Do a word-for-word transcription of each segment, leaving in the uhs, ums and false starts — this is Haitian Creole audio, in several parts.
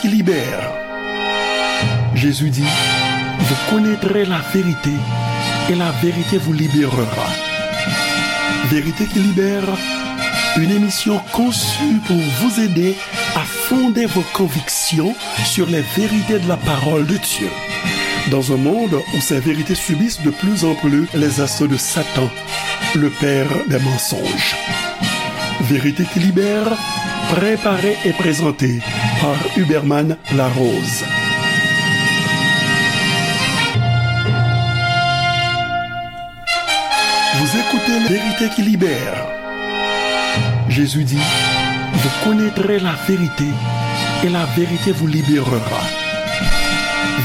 qui libère. Jésus dit, vous connaîtrez la vérité et la vérité vous libérera. Vérité qui libère, une émission conçue pour vous aider à fonder vos convictions sur les vérités de la parole de Dieu. Dans un monde où ces vérités subissent de plus en plus les assauts de Satan, le père des mensonges. Vérité qui libère, préparée et présentée par Huberman Larose. Vous écoutez Vérité qui libère. Jésus dit, vous connaîtrez la vérité et la vérité vous libérera.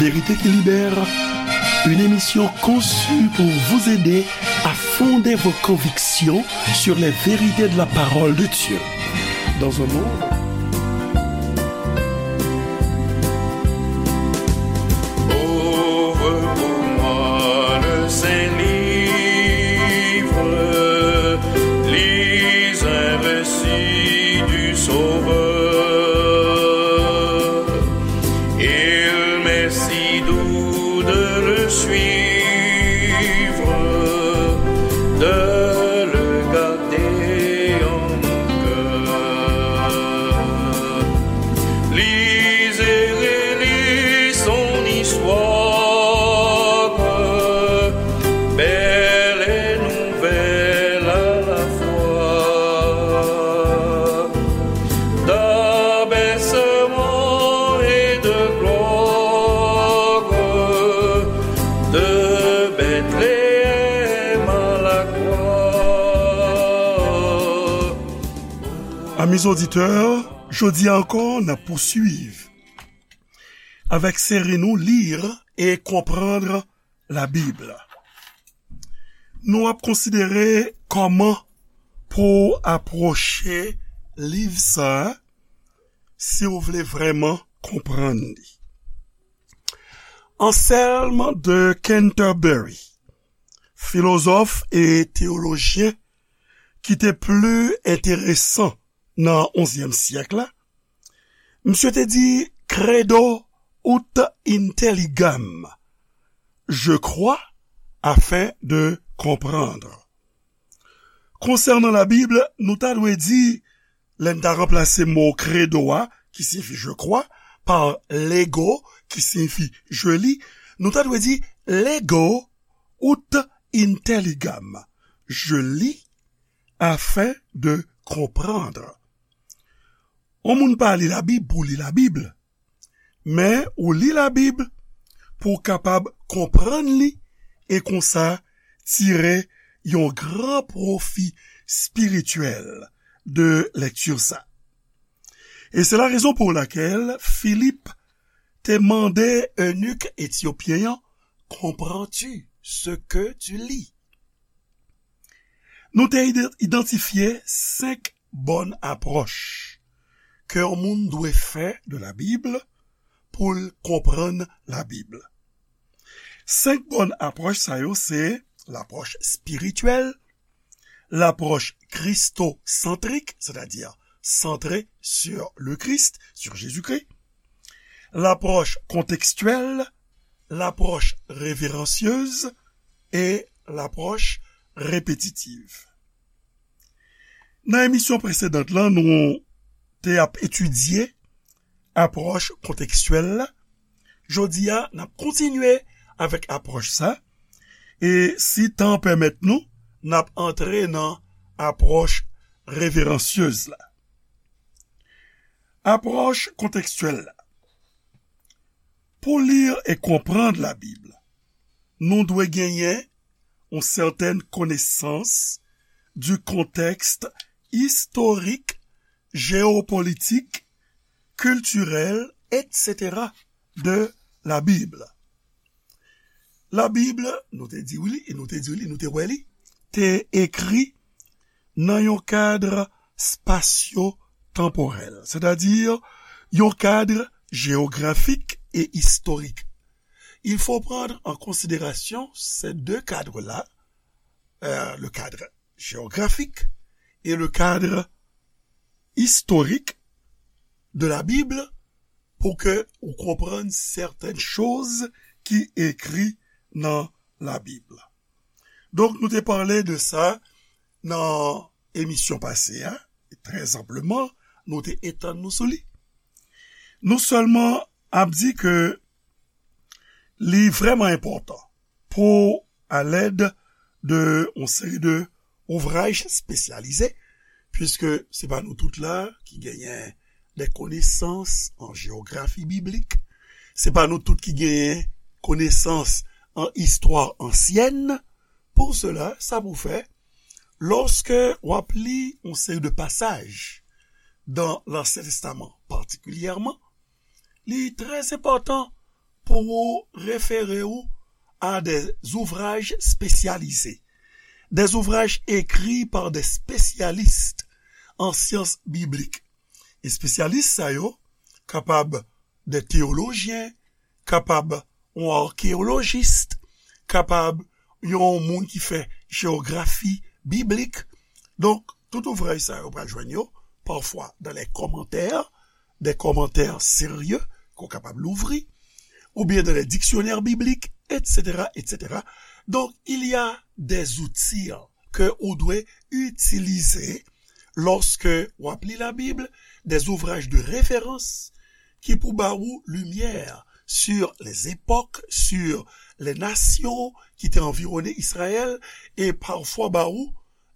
Vérité qui libère, une émission conçue pour vous aider à fonder vos convictions sur les vérités de la parole de Dieu. Dans un monde Ouvre pour moi le saint livre, lis un récit du Sauveur. Il m'est si doux de le suivre, de le garder en mon cœur. Lisez, relisez son histoire, belle et nouvelle à la fois, d'abaissement et de gloire, de Bethléem à la croix. Amis auditeurs, jodi a ankò, n ap pouswiv avèk seri nou Lire et comprendre la Bible. Nou ap konsidere kòman pou w apwoche liv sa a si w vle vrèman konprann li. Anselm de Canterbury, filozòf e teyolojyen ki te pli enteresan nan onzyèm syèk la, misye te di, Credo ut intelligam, je crois afin de comprendre. Konsènan Labib, nou ta dwe di, lè n ta ranplase mo credo a, ki siyifi je crois, pa lego, ki siyifi je lis, nou ta dwe di lego ut intelligam, je lis afin de comprendre. Yon moun pa li Labib pou li Labib, men ou li Labib pou w kapab konprann li e konsa tire yon gran pwofi espirityèl de lèkti sa. E se la rezon pou lakèl Filip te mande enik etyopyen an, comprends-tu ce que tu lis? Nou te ide- idantifye senk bòn apwòch ke yon moun dwe fè de Labib pou l konprann Labib. Senk bòn apwòch sa yo se lapwòch espirityèl, lapwòch kristosantrik, sètadi santre sur le Christ, sur Jésus-Christ, lapwòch kontekstyèl, lapwòch reveransyez e lapwòch repetitiv. Nan emisyon presedan lan, nou te ap etidye apwòch kontekstyèl la. Jodi a, n ap kontinye avèk apwòch sa, e si tan pèmèt nou, n ap antre nan apwòch reveransyez la. Apwòch kontekstyèl la. Pou li e konprann Labib, nou dwe genyen yon sètèn konesans du contexte historique, géopolitique, culturel, et cetera de la Bible. Labib, nou te di w li, e nou te di w li, nou te wè li, te ekri nan yon kad spasyo-tanporèl, sètadi yon kad jewografik e istorik. Il faut prendre en considération ces deux cadres-là, euh, le cadre géographique et le cadre historique de la Bible pou ke ou konprann sèten choz ki ekri nan Labib. Donk, nou te pale de sa nan emisyon pase a, e trè anpleman, nou te etann nou sou li. Nou sèlman ap di ke li vrèman enpòtan pou, alèd de yon seri de ouvraj espesyalize, puiske se pa nou tout la ki genyen de konesans an jewografi biblik, se pa nou tout ki genyen konesans an istwa ansyèn. Pou sela, sa pou fè, lòske w ap li yon seri de pasaj dan Lansyen Testaman patikilyèman, li trè enpòtan pou ou refere ou a de zouvraj espesyalize, de zouvraj ekri pa de espesyalis an syans biblik. Espesyalis sa yo kapab de teyolojyen, kapab yon akeyolojis, kapab yon moun ki fè jewografi biblik. Donk, tout ouvraj sa yo pral jwenn yo, pafwa, dan lè kòmantè, de kòmantè serye ke w kapab louvri, oubyen dan lè diksyonè biblik, etsetera, etsetera. Donk, il y a des outils ke ou dwe itilize lòske w ap li Labib, de zouvraj de referans ki pou ba ou limyè sur les époques, sur les nations ki te anviwone Izrayèl, e pafwa ba ou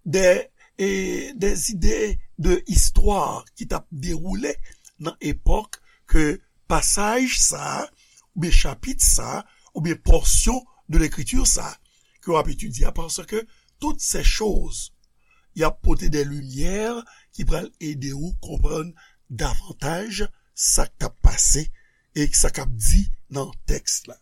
de, e, de zide de istwa ki t ap dewoule nan epòk ke pasaj sa a, oubyen chapit sa a, oubyen pòsyon de lekriti sa a ke w ap etidye a, paske tout se choz y ap pote de limyè ki pral ede ou konprann davantaj sa k t ap pase e sa k ap di nan tèks la.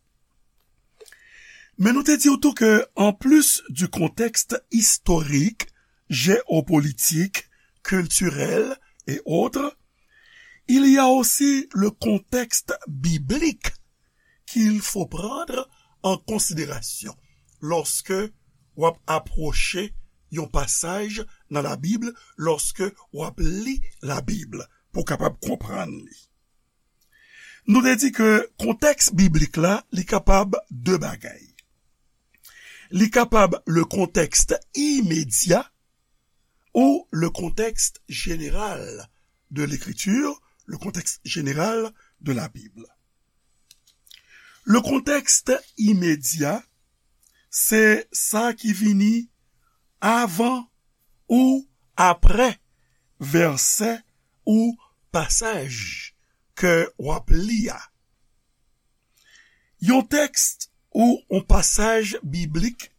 Men nou te di w tou ke, en plus du contexte historique, géopolitique, culturel et autres, il y a aussi le contexte biblique qu'il faut prendre en considération lorsque w ap apwoche yon pasaj nan Labib, lorsque w ap li Labib pou w kapab konprann li. Nou te di ke kontèks biblik la, li kapab de bagay. Li kapab le contexte immédiat ou le contexte général de l'écriture, le contexte général de la Bible. Le contexte immédiat, se sa ki vini avan ou aprè vèsè ou pasaj ke w ap li a. Yon tèks ou yon pasaj biblik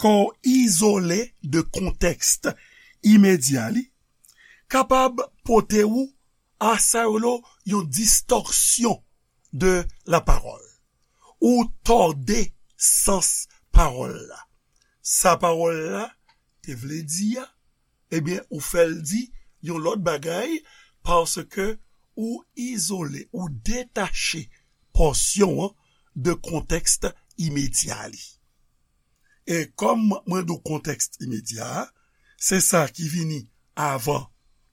ke w izole de kontèks imedya li kapab pote ou a sa yo rele yon distòksyon de la parole, ou tòde sans pawòl la. Sa pawòl la te vle di a, ebyen, ou fè l di yon lòt bagay, paske ou izole, ou detache pòsyon an de kontèks imedya li. E kòm mwen di w kontèks imedya a, se sa ki vini avan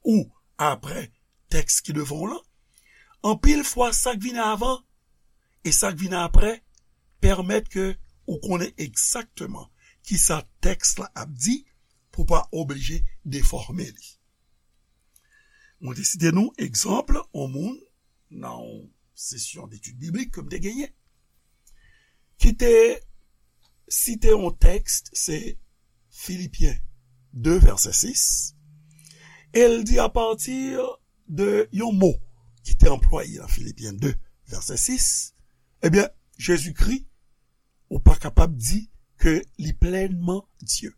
ou aprè tèks ki devan w lan. Anpil fwa, sa k vini avan e sa k vini aprè pèmèt ke ou konnen egzakteman kisa tèks la ap di pou w pa oblije defòme li. Mwen te site nou egzanp yon moun nan yon sesyon detid biblik ke m te genyen, ki te site yon tèks, se Filipyen de, vèsè sis, e l di apati de yon mo ki te anplwaye nan Filipyen de, vèsè sis, ebyen, Jezikri, ou pa kapab di ke li plènman Dye.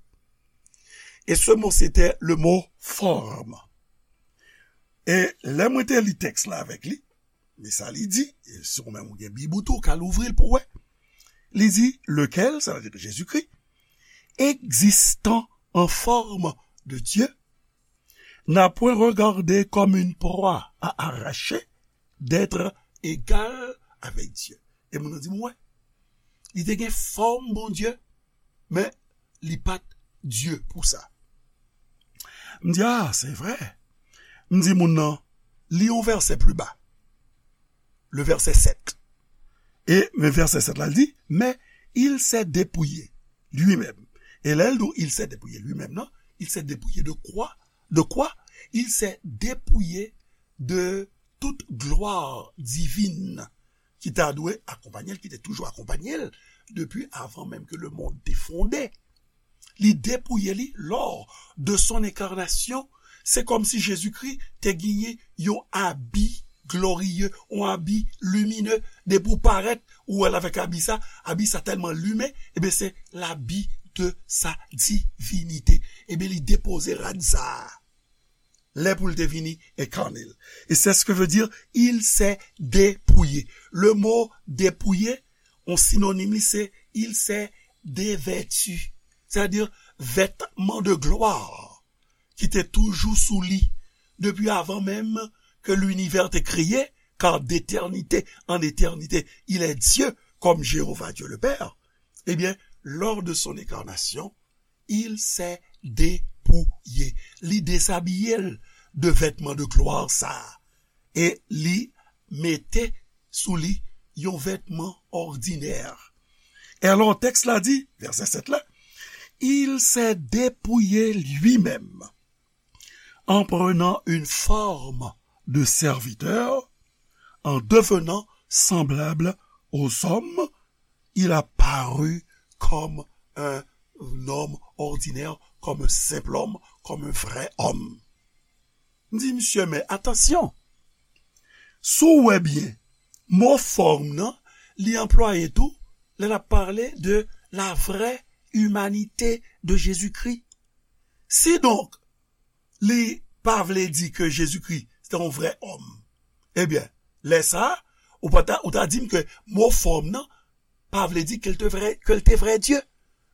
E se mo, se te le mo forme. E lè mwen te li tèks la avèk li, men sa li di, e si ou menm ou gen Bib ou tou, ou ka louvri l pou w wè. Li di, lequel, sa vle di Jezikri, existant en forme de Dieu, n'a point regardé comme une proie à arracher d'être égal avec Dieu. E moun nan di m, wè, li te gen fòm Bondye, men li pa t Dye pou sa. M di, a, se vre. M di moun nan, li yon vèsè pli ba. le verset sept. E men verset sept la, li di, mais il s'est dépouillé lui-même. E lè l di il s'est dépouillé lui-même, non, il s'est dépouillé de quoi? De quoi? Il s'est dépouillé de toute gloire divine ki ta dwe akonpanye l, ki te toujou akonpanye l depi avan menm ke lemonn te fonde. Li depouye li lors de son incarnation. Se kòmsi Jezikri te genyen yon abi gloriye, yon abi limine. Depi w parèt, ou wè l avèk abi sa, abi sa tèlman limen, ebyen, se l'habit de sa divinité. Ebyen, li depoze rad sa a. Lè pou l te vini enkane l. Et c'est ce que veut dire, il s'est dépouillé. Le mot dépouillé, yon sinonim li, se il s'est dévêtu. Sètadi, vètman de glwa ki te toujou sou li depi avan menm ke linivè te kreye, car d'éternité en éternité, il est Dieu, comme Jéhovah Dieu le Père. Eh bien, lors de son incarnation, il s'est dépouillé. Li dezabiye l de vètman de glwa sa a. E li mete sou li yon vètman òdinè. E alò, tèks la di, vèsè sèt la, il s'est dépouillé lui-même en prenant une forme de serviteur, en devenant semblable aux hommes, il a paru comme un homme ordinaire, comme un simple homme, comme un vrai homme. M di, misye, men atansyon. Si w wè byen, mo fòm nan, li anplwaye tou, lè l ap pale de la vraie humanité de Jésus-Christ. Si donk, li pa vle di ke Jezikri se te yon vrè òm, ebyen, lè sa a, ou pa ta, ou ta di m ke mo fòm nan pa vle di ke l te vrè, ke l te vrè Dye.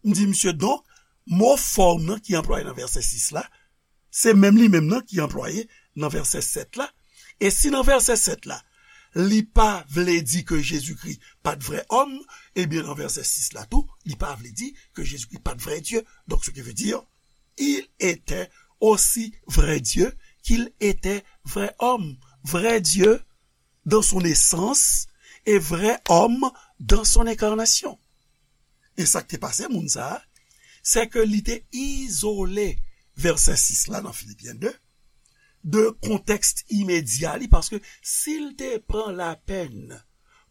M di, misye, donk, mo fòm nan ki anplwaye nan vèsè sis la, se menm li menm nan ki anplwaye nan vèsè sèt la. E si nan vèsè sèt la, li pa vle di ke Jezikri pa t vrè òm, ebyen, nan vèsè sis la tou, li pa vle di ke Jezikri pa t vrè Dye. Donc, ce qui veut dire, il était aussi vrai Dieu qu'il était vrai homme. Vrai Dieu dans son essence et vrai homme dans son incarnation. E sa k te pase moun sa a, se ke li te izole vèsè sis la nan Filipyen de, de kontèks imedya li, paske si l te pran lapèn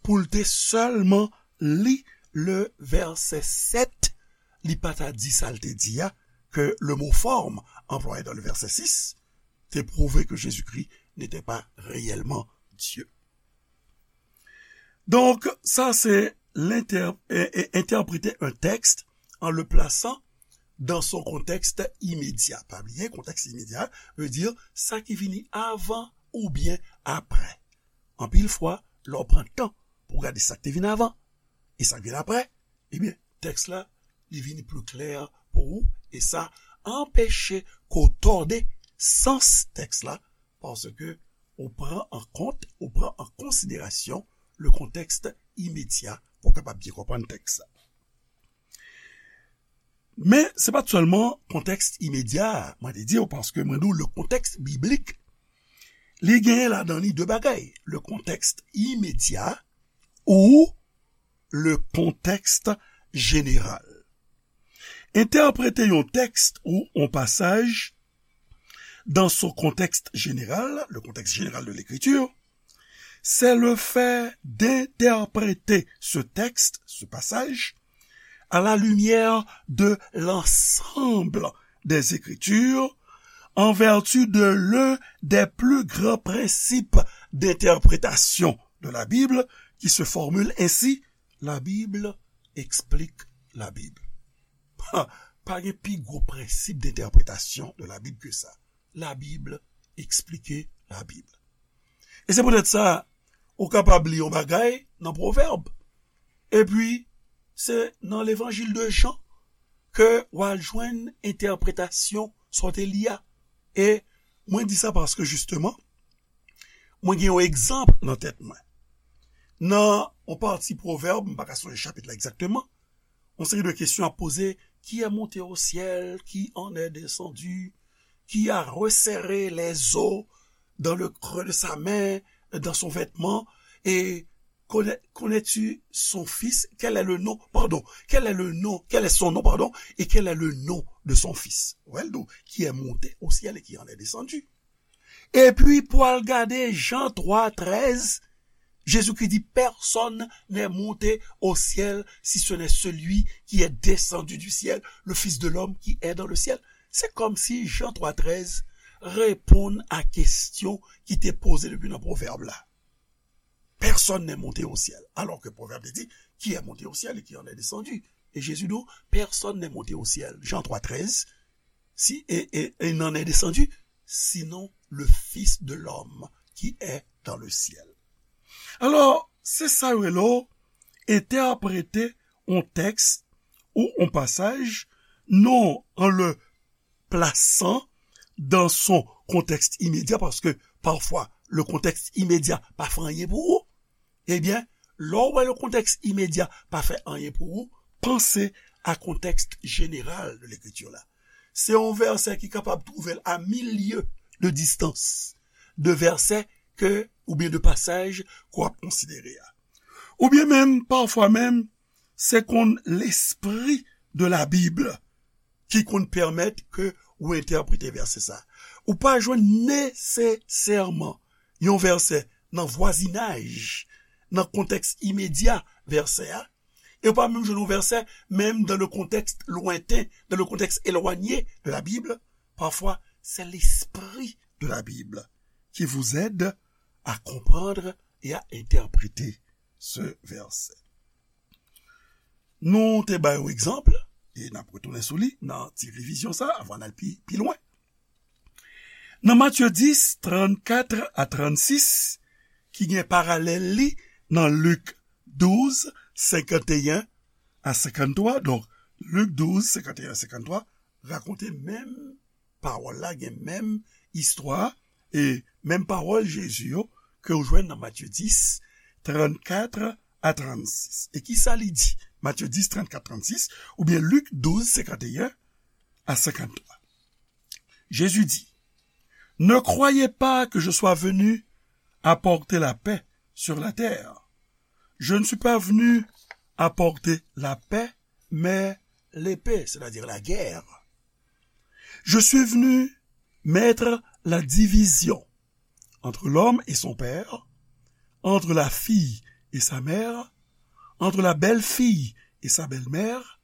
pou l te sèlman li le vèsè sèt, li pa ta di sa l te di a, ke le mot forme employé dans le verset six te prouve que Jésus-Christ n'était pas réellement Dieu. Donk, sa se lentè-, e, e, entèprete yon tèks an le plasan dans son contexte immédiat. Pa bliye, kontèks imedya vle di sa ki vini avan oubyen apre. Anpil fwa, lè w pran tan pou w gade sa k te vin avan e sa k vin apre, ebyen, tèks la, li vini pli klè pou ou, e sa anpeche ke w tòde sans tèks la, paske ou pran an kont, ou pran an konsiderasyon le contexte immédiat pou w kapab byen konprann tèks la. Men, se pa t sèlman kontèks imedya a, mwen te di w, paske mwen di w, le contexte biblique, li genyen ladan li de bagay. Le contexte immédiat ou le contexte général. Entèprete yon tèks ou yon pasaj dans son contexte général, le contexte général de l'écriture, c'est le fait d'interpréter ce texte, ce passage, à la lumière de l'ensemble des Écritures, en vertu de l'un des plus grands principes d'interprétation de la Bible, qui se formule ainsi, la Bible explique la Bible. Pa, pa gen pi gwo prensip d'entèpretasyon de la Bib ke sa. La Bible explique la Bible. E se poutèt sa, ou kapab li yon bagay nan Pwovèb. Epi, se nan Levanjil de Jan ke w al jwenn entèpretasyon sa w te li a. E mwen di sa paske, jisteman, mwen gen yon egzanp nan tèt mwen. Nan yon pati Pwovèb, m pa ka sonje chapit la egzakteman, yon seri de kesyon ap poze, qui est monté au ciel, qui en est descendu, qui a resserré les eaux dans le creux de sa main, dans son vêtement, Et connais-tu son fils? Quel est le nom? Pardon. Quel est le nom? Quel est son nom? Pardon. Et quel est le nom de son fils? Ou wè l di w, qui est monté au ciel et qui en est descendu. Epi pou al gade Jan twa trèz, Jezikri di, personne n'est monté au ciel si ce n'est celui qui est descendu du ciel, le Fils de l'homme qui est dans le ciel. Se kòmsi Jan twa trèz reponn a kesyon ki te poze depi nan pwovèb la. Personne n'est monté au ciel. Alors que Proverbe dit, qui est monté au ciel et qui en est descendu? Et Jésus dit, personne n'est monté au ciel. Jean trois treize, si, et, et, et n'en est descendu, sinon le Fils de l'homme qui est dans le ciel. Alò, se sa yo rele entèprete yon tèks ou yon pasaj, non an le plasan dan son kontèks imedya, paske pafwa le kontèks imedya pa fè anyen pou ou, ebyen, lè w wè le kontèks imedya pa fè anyen pou ou, panse a kontèks jeneral de lekriti la. Se yon vèsè ki kapab twouve l a mil lye de distans de vèsè ke, oubyen de pasaj ke w ap konsidere a. Oubyen menm, pafwa menm, se konn lespri de la Bib ki konn pèmèt ke ou entèprete vèsè sa. Ou pa jwenn nesesèman yon vèsè nan vwazinaj, nan kontèks imedya vèsè a, e ou pa menm jwenn yon vèsè menm dans le contexte lointain, dans le contexte éloigné de la Bible. Parfois, c'est l'esprit de la Bible qui vous aide à comprendre et à interpréter ce verset. Nou te bay yon egzanp, e n ap retounen sou li nan ti revizyon sa, avan n al pi, pi lwen. Nan Matye dis, trannkat a trannsis, ki gen paralèl li nan Lik douz, senkanteyen a senkanntwa. Donk, Lik douz, senkanteyen a senkanntwa, rakonte menm pawòl la, gen menm istwa, e menm pawòl Jezi yo ke w jwenn nan Matye dis, trannkat a trannsis. E kisa li di? Matye dis, trannkat, trannsis, oubyen Lik douz, senkanteyen a senkanntwa. Jésus dit, ne croyez pas que je sois venu apporter la paix sur la terre. Je ne suis pas venu apporter la paix, mais l'épée, c'est-à-dire la guerre. Je suis venu mettre la division entre l'homme et son père, entre la fille et sa mère, entre la belle-fille et sa belle-mère,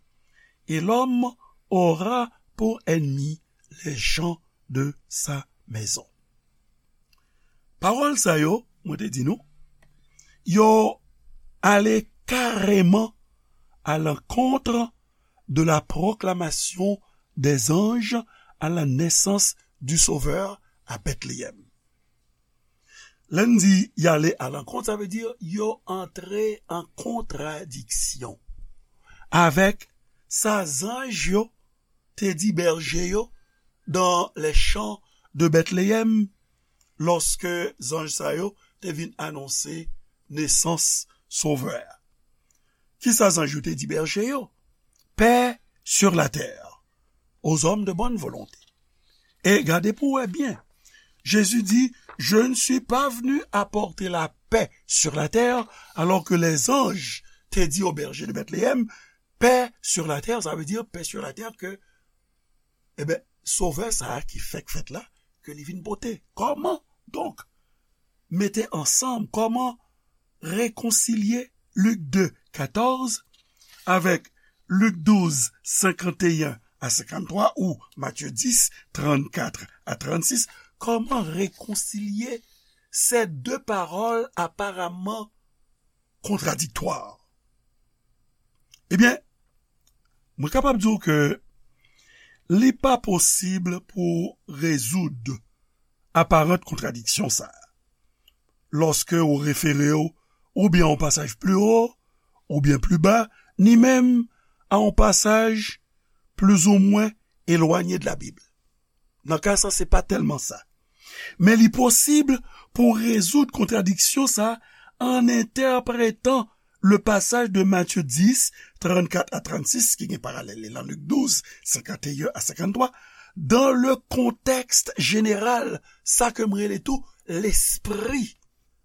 et l'homme aura pour ennemis les gens de sa maison. Pawòl sa yo, mwen te di nou, yo ale kareman à l'encontre de la proclamation des anges à la naissance du Sauveur à Bethléem. Lè n di y ale à l'encontre, sa vle di yo antre an kontradiksyon avèk sa zanj yo te di bèje yo dans les champs de Bethléem, lòske zanj sa yo te vin anonse nesans Sovè a. Kisa zanj yo te di bèje yo? Paix sur la terre, aux hommes de bonne volonté. E gade pou wè byen. Jésus dit, je ne suis pas venu apporter la paix sur la terre, alors que les anges te di aux bergers de Bethléem, paix sur la terre, sa vle di paix sur la terre ke, e ben, Sovè sa a ki fèk fèt la, ke li vin pote. Kòman? Donk, mete ansanm, kòman rekonsilye Lik de, katòz avèk Lik douz, senkanteyen a senkanntwa ou Matye dis, trannkat a trannsis, kòman rekonsilye ces deux paroles apparemment contradictoires? Ebyen, mwen kapab di w ke li pa posib pou rezoud aparant kontradiksyon sa a. Lòske ou refere w oubyen a yon pasaj pli wo, oubyen pli ba, ni menm a yon pasaj plizoumwen elwanye de la Bib. Nan ka sa, se pa tèlman sa. Men li posib pou rezoud kontradiksyon sa an entèpretan le pasaj de Matye dis, trannkat a trannsis, ki gen paralèl li lan Lik douz, senkanteyen a senkanntwa, dans le contexte général, sa ke m rele tou lespri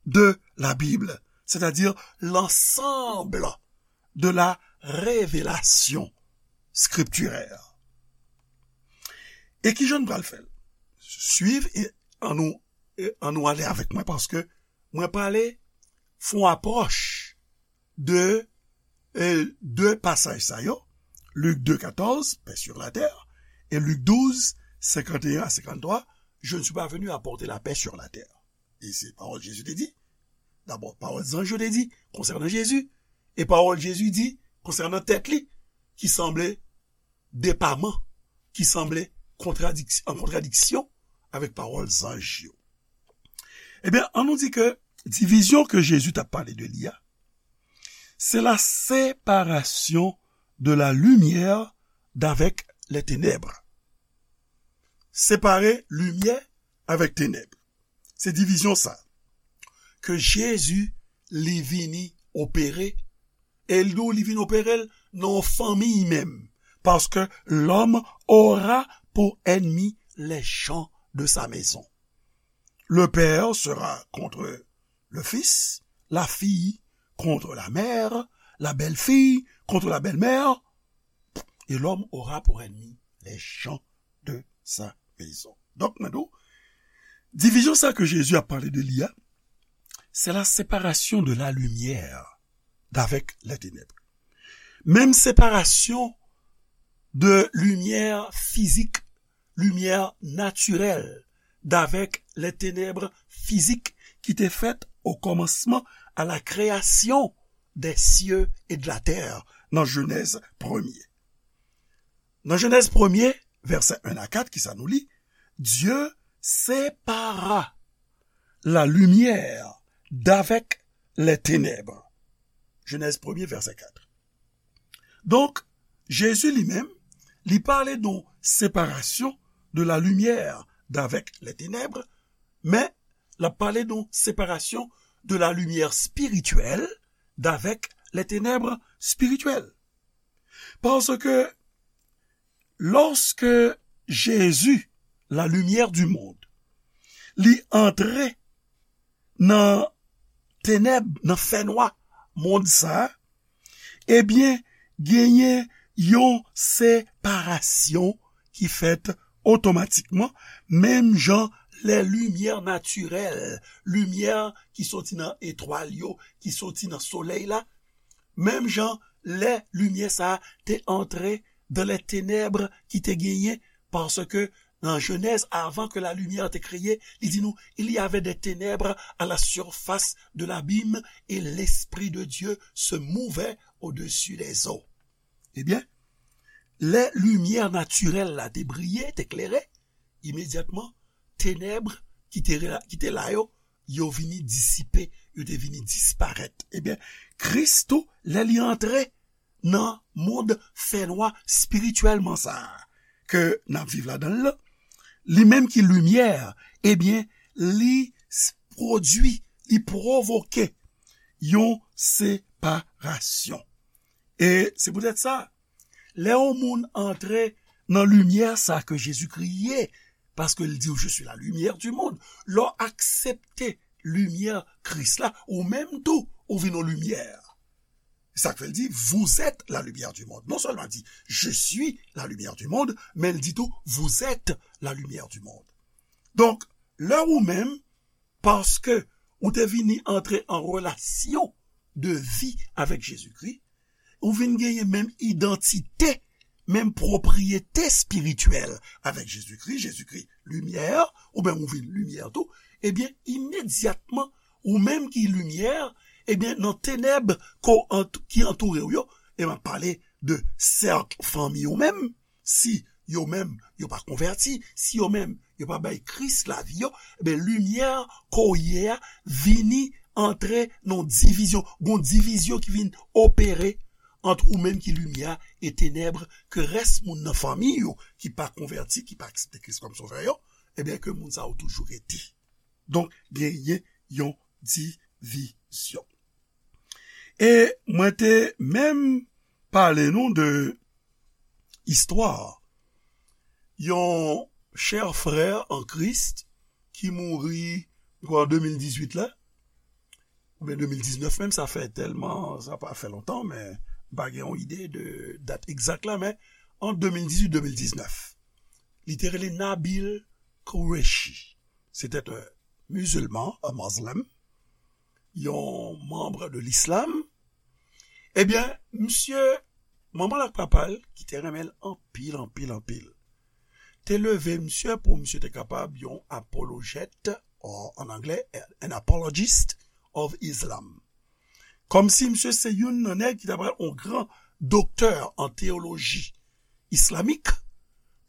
de la Bible, c'est-à-dire l'ensemble de la révélation scripturaire. E ki jan n pral fè l? Swiv e ann nou, e ann nou ale avèk mwen, paske mwen prale fè yon apwòch de, e, de pasaj sa yo, Lik de katòz, paix sur la terre, e Lik douz, senkanteyen a senkanntwa, je ne suis pas venu apporter la paix sur la terre. E se pawòl Jezi te di. Dabò, pawòl zanj yo te di konsènan Jezi, e pawòl Jezi di konsènan tèt li, ki sanble depaman, ki sanble kontradiks-, an kontradiksyon avèk pawòl zanj yo. Ebyen, ann nou di ke divizyon ke Jezi t ap pale de li a, c'est la séparation de la lumière d'avec les ténèbres. Separe limyè avèk tenèb. Se divizyon sa ke Jezi li vini opere, e l di w li vin opere l nan yon fanmi menm, paske l'homme aura pour ennemi les gens de sa maison. Le père sera contre le fils, la fille contre la mère, la belle-fille contre la belle-mère, et l'homme aura pour ennemi les gens de sa maison. Donk, mwen di w, divizyon sa ke Jezi ap pale de li a, c'est la séparation de la lumière d'avec les ténèbres. Menm separasyon de limyè fizik, limyè natirèl, d'avec les ténèbres physiques ki te fèt au commencement, à la création des cieux et de la terre, nan Jenèz premye. Nan Jenèz premye, vèsè en a kat, ki sa nou li? Dieu sépara la lumière d'avec les ténèbres. Jenèz premye, vèsè kat. Donk, Jezi li menm, li pale de yon separasyon de la lumière d'avec les ténèbres, men l ap pale de yon separasyon de la lumière spirituelle d'avec les ténèbres spirituelles. Paske lòske Jezi, la lumière du monde, li antre nan tenèb, nan fènwa mond sa a, ebyen, genyen yon separasyon ki fèt otomatikman, menm jan lè limyè natirèl, limyè ki soti nan etwal yo, ki soti nan solèy la, menm jan lè limyè sa a te antre dans les ténèbres ki te genyen, paske nan Jenèz, avan ke la lumière te kreye, li di nou, il y avait des ténèbres à la surface de l'abîme et l'Esprit de Dieu se mouvait au-dessus des eaux. Ebyen, lè limyè natirèl la te briye, te klere, imedyatman, tenèb ki te, ki te la yo, yo vini disipe, yo te vini disparèt. Ebyen, Kris tou, lè li antre nan mond fènwa espirityèlman sa a ke n ap viv ladan l lan, li menm ki limyè, ebyen, li s-, pwodui, li pwovoke yon separasyon. E se poutèt sa, lè yon moun antre nan limyè sa ke Jezikri ye, paske l di w, je suis la lumière du monde, lè w aksepte limyè Kris la, ou menm tou, ou vin yon limyè. Sa k fè l di, vous êtes la lumière du monde. Non sèlman di, je suis la lumière du monde, men l di tou, vous êtes la lumière du monde. Donk, lè ou menm, paske ou te vini antre an relasyon de vi avèk Jezikri, ou vin genyen menm idantite, menm pwopriyete espirityèl avèk Jezikri, Jezikri limyè, ou menm ou vin limyè tou, ebyen, imedyatman, ou menm ki limyè, ebyen, nan tenèb ko ant-, ki antoure w yo, e m ap pale de sèk fanmi w menm, si yo menm yo pa konvèti, si yo menm yo pa bay Kris lavi yo, ebyen, limyè ke w ye a vini antre nan divizyon, gon divizyon ki vin opere ant ou menm ki limyè e tenèb ke rès moun nan fanmi yo ki pa konvèti, ki pa aksepte Kris kòm sovè yo, ebyen, ke moun sa yo toujou rete. Donk, genyen yon divizyon. E mwen te menm pale nou de istwa yon chè frè an Kris ki mouri, m kwè, an de mil dizuit la, oubyen de mil diznèf menm, sa fè tèlman, sa pa fè lontan, men m pa gen yon ide de dat egzak la, men ant de mil dizuit de mil diznèf, li te rele Nabil Qureshi. Se te yon mizilman, un Muslim, yon manm de l'islam. Ebyen, misye, manman l ak papa l, ki te renmen l anpil, anpil, anpil, te leve misye pou misye te kapab yon apolojèt, an anglè, an apologist of Islam. Kòmsi misye se youn nan nèg ki ta pral yon gran doktè an teyoloji islamik,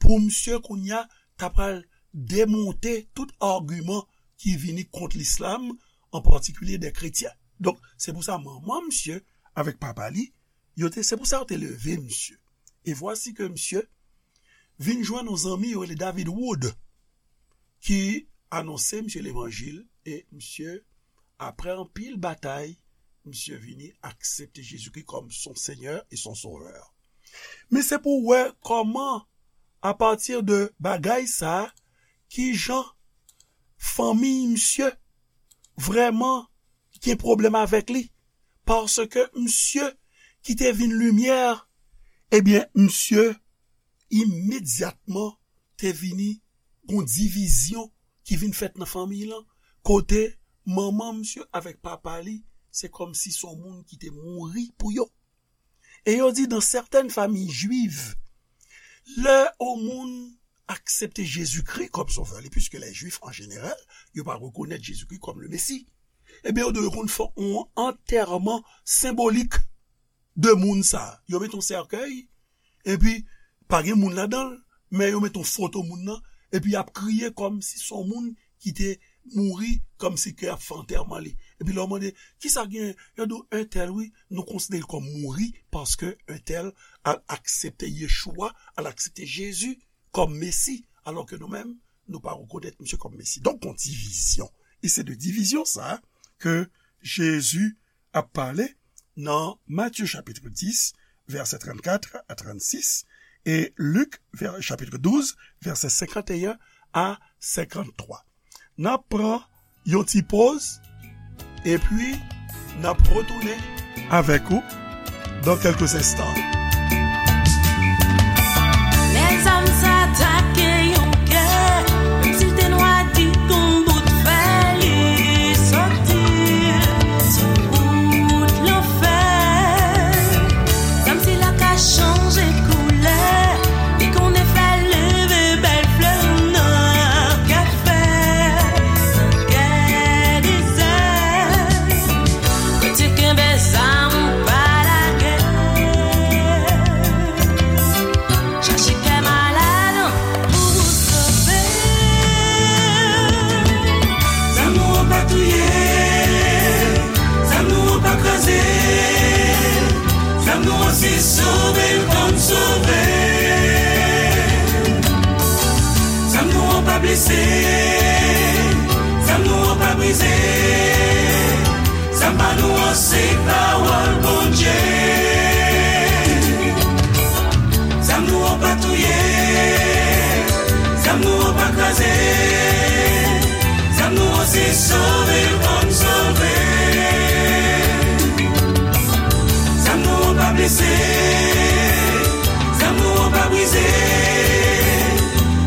pou misye kounye a ta pral demonte tout agiman ki vini kont lislam, an patikilye dè kretyen. Donk, se pou sa manman misye avèk papa li, yo te, se pou sa yo te leve misye. E vwasi ke misye vin jwenn yon zanmi yo rele David Wood, ki anonse misye levanjil, e misye, apre anpil batay, misye vini aksepte Jezikri kòm son Senyè e son Sovè. Men se pou w wè kòman, apati de bagay sa, ki jan fanmi misye vrèman gen pwoblèm avèk li. Paske misye ki te vin limyè, ebyen, misye imedyatman te vini gon divizyon ki vin fèt nan fanmi lan, kote manman misye avèk papa li, se kòmsi se yon moun ki te mouri pou yo. E yo di, dans certaines familles juives, lè yon moun aksepte Jezikri kòm sovè li, puiske lè Jwif, an jeneral, yo pa rekonèt Jezikri kòm le Mesi, ebyen, yo dwe konn fè yon antèman senbolik de moun sa. Yo met yon sèkèy, epi pa gen moun ladan l, men yo met yon foto moun nan, epi y ap kriye kòmsi se yon moun ki te mouri, kòmsi ke y ap fè antèman li. Epi lè w mande, "Kisa gen?" Yo di w, "Entèl, wi, nou konsidere l kòm mouri, paske entèl al aksepte Yeshua, al aksepte Jezi kòm Mesi, alò ke nou menm, nou pa rekonèt misye kòm Mesi." Donk, gon divizyon. E se de divizyon sa ke Jezi ap pale nan Matye chapit dis, vèsè trannkat a trannsis, e Lik, vè-, chapit douz, vèsè senkanteyen a senkanntwa. N ap pran yon ti poz, epi n ap retounen avèk ou dans quelques instants. Lè zam sa atake yon kè, menm si l te nwa di kon bout fè, li soti sou wout lanfè. Zam sila ka chanje koulè, li konnen fè leve bèl flè nan kè fè, nan kè dezè. Kote kenbe zam ou pa lage. Chache kè malad an pou ou sove. Zam nou an pa touye, zam nou an pa kraze, zam nou an se sove l konn sove. Zam nou an pa blese, zam nou an pa brize. Zam pa nou an se pawòl Bondye. Zam nou an pa touye, zam nou an pa kraze. Zam nou an se sove l konn sove. Zam nou an pa blese, zam nou an pa brize.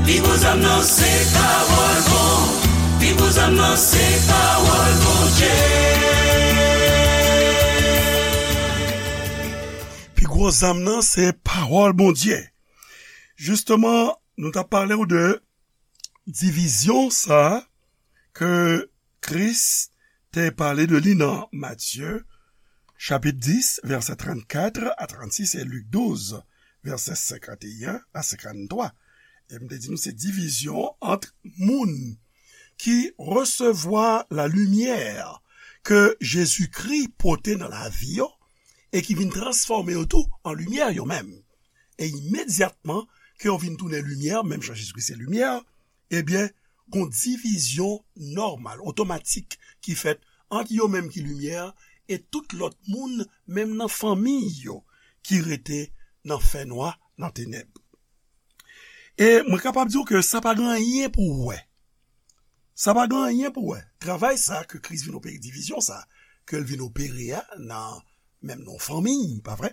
Pi gwo zam nan se pawòl Bon-, pi gwo zam nan se pawòl Bondye. Pi gwo zam nan se pawòl Bondye. Jisteman, nou t ap pale w de divizyon sa ke Kris te pale de li nan Matye, chapit dis, vèsè trannkat a trannsis, e Lik douz, vèsè senkanteyen a senkanntwa. E m te di nou se divizyon ant moun ki resevwa lalimyè ke Jezikri pote nan lavi yo e ki vin transfòme yo tou an limyè yo menm. E imedyatman ke yo vin tounen limyè, menm jan Jezikri se limyè, ebyen, gon divizyon nòmal, otomatik, ki fèt ant yo menm ki limyè e tout lòt moun, menm nan fanmi yo, ki rete nan fènwa, nan tenèb. E mwen kapab di w ke sa pa gen anyen pou w wè. Sa pa gen anyen pou w wè. Travay sa ke Kris vin opere divizyon sa, ke l vin opere a nan menm nan yon fanmi, pa vre?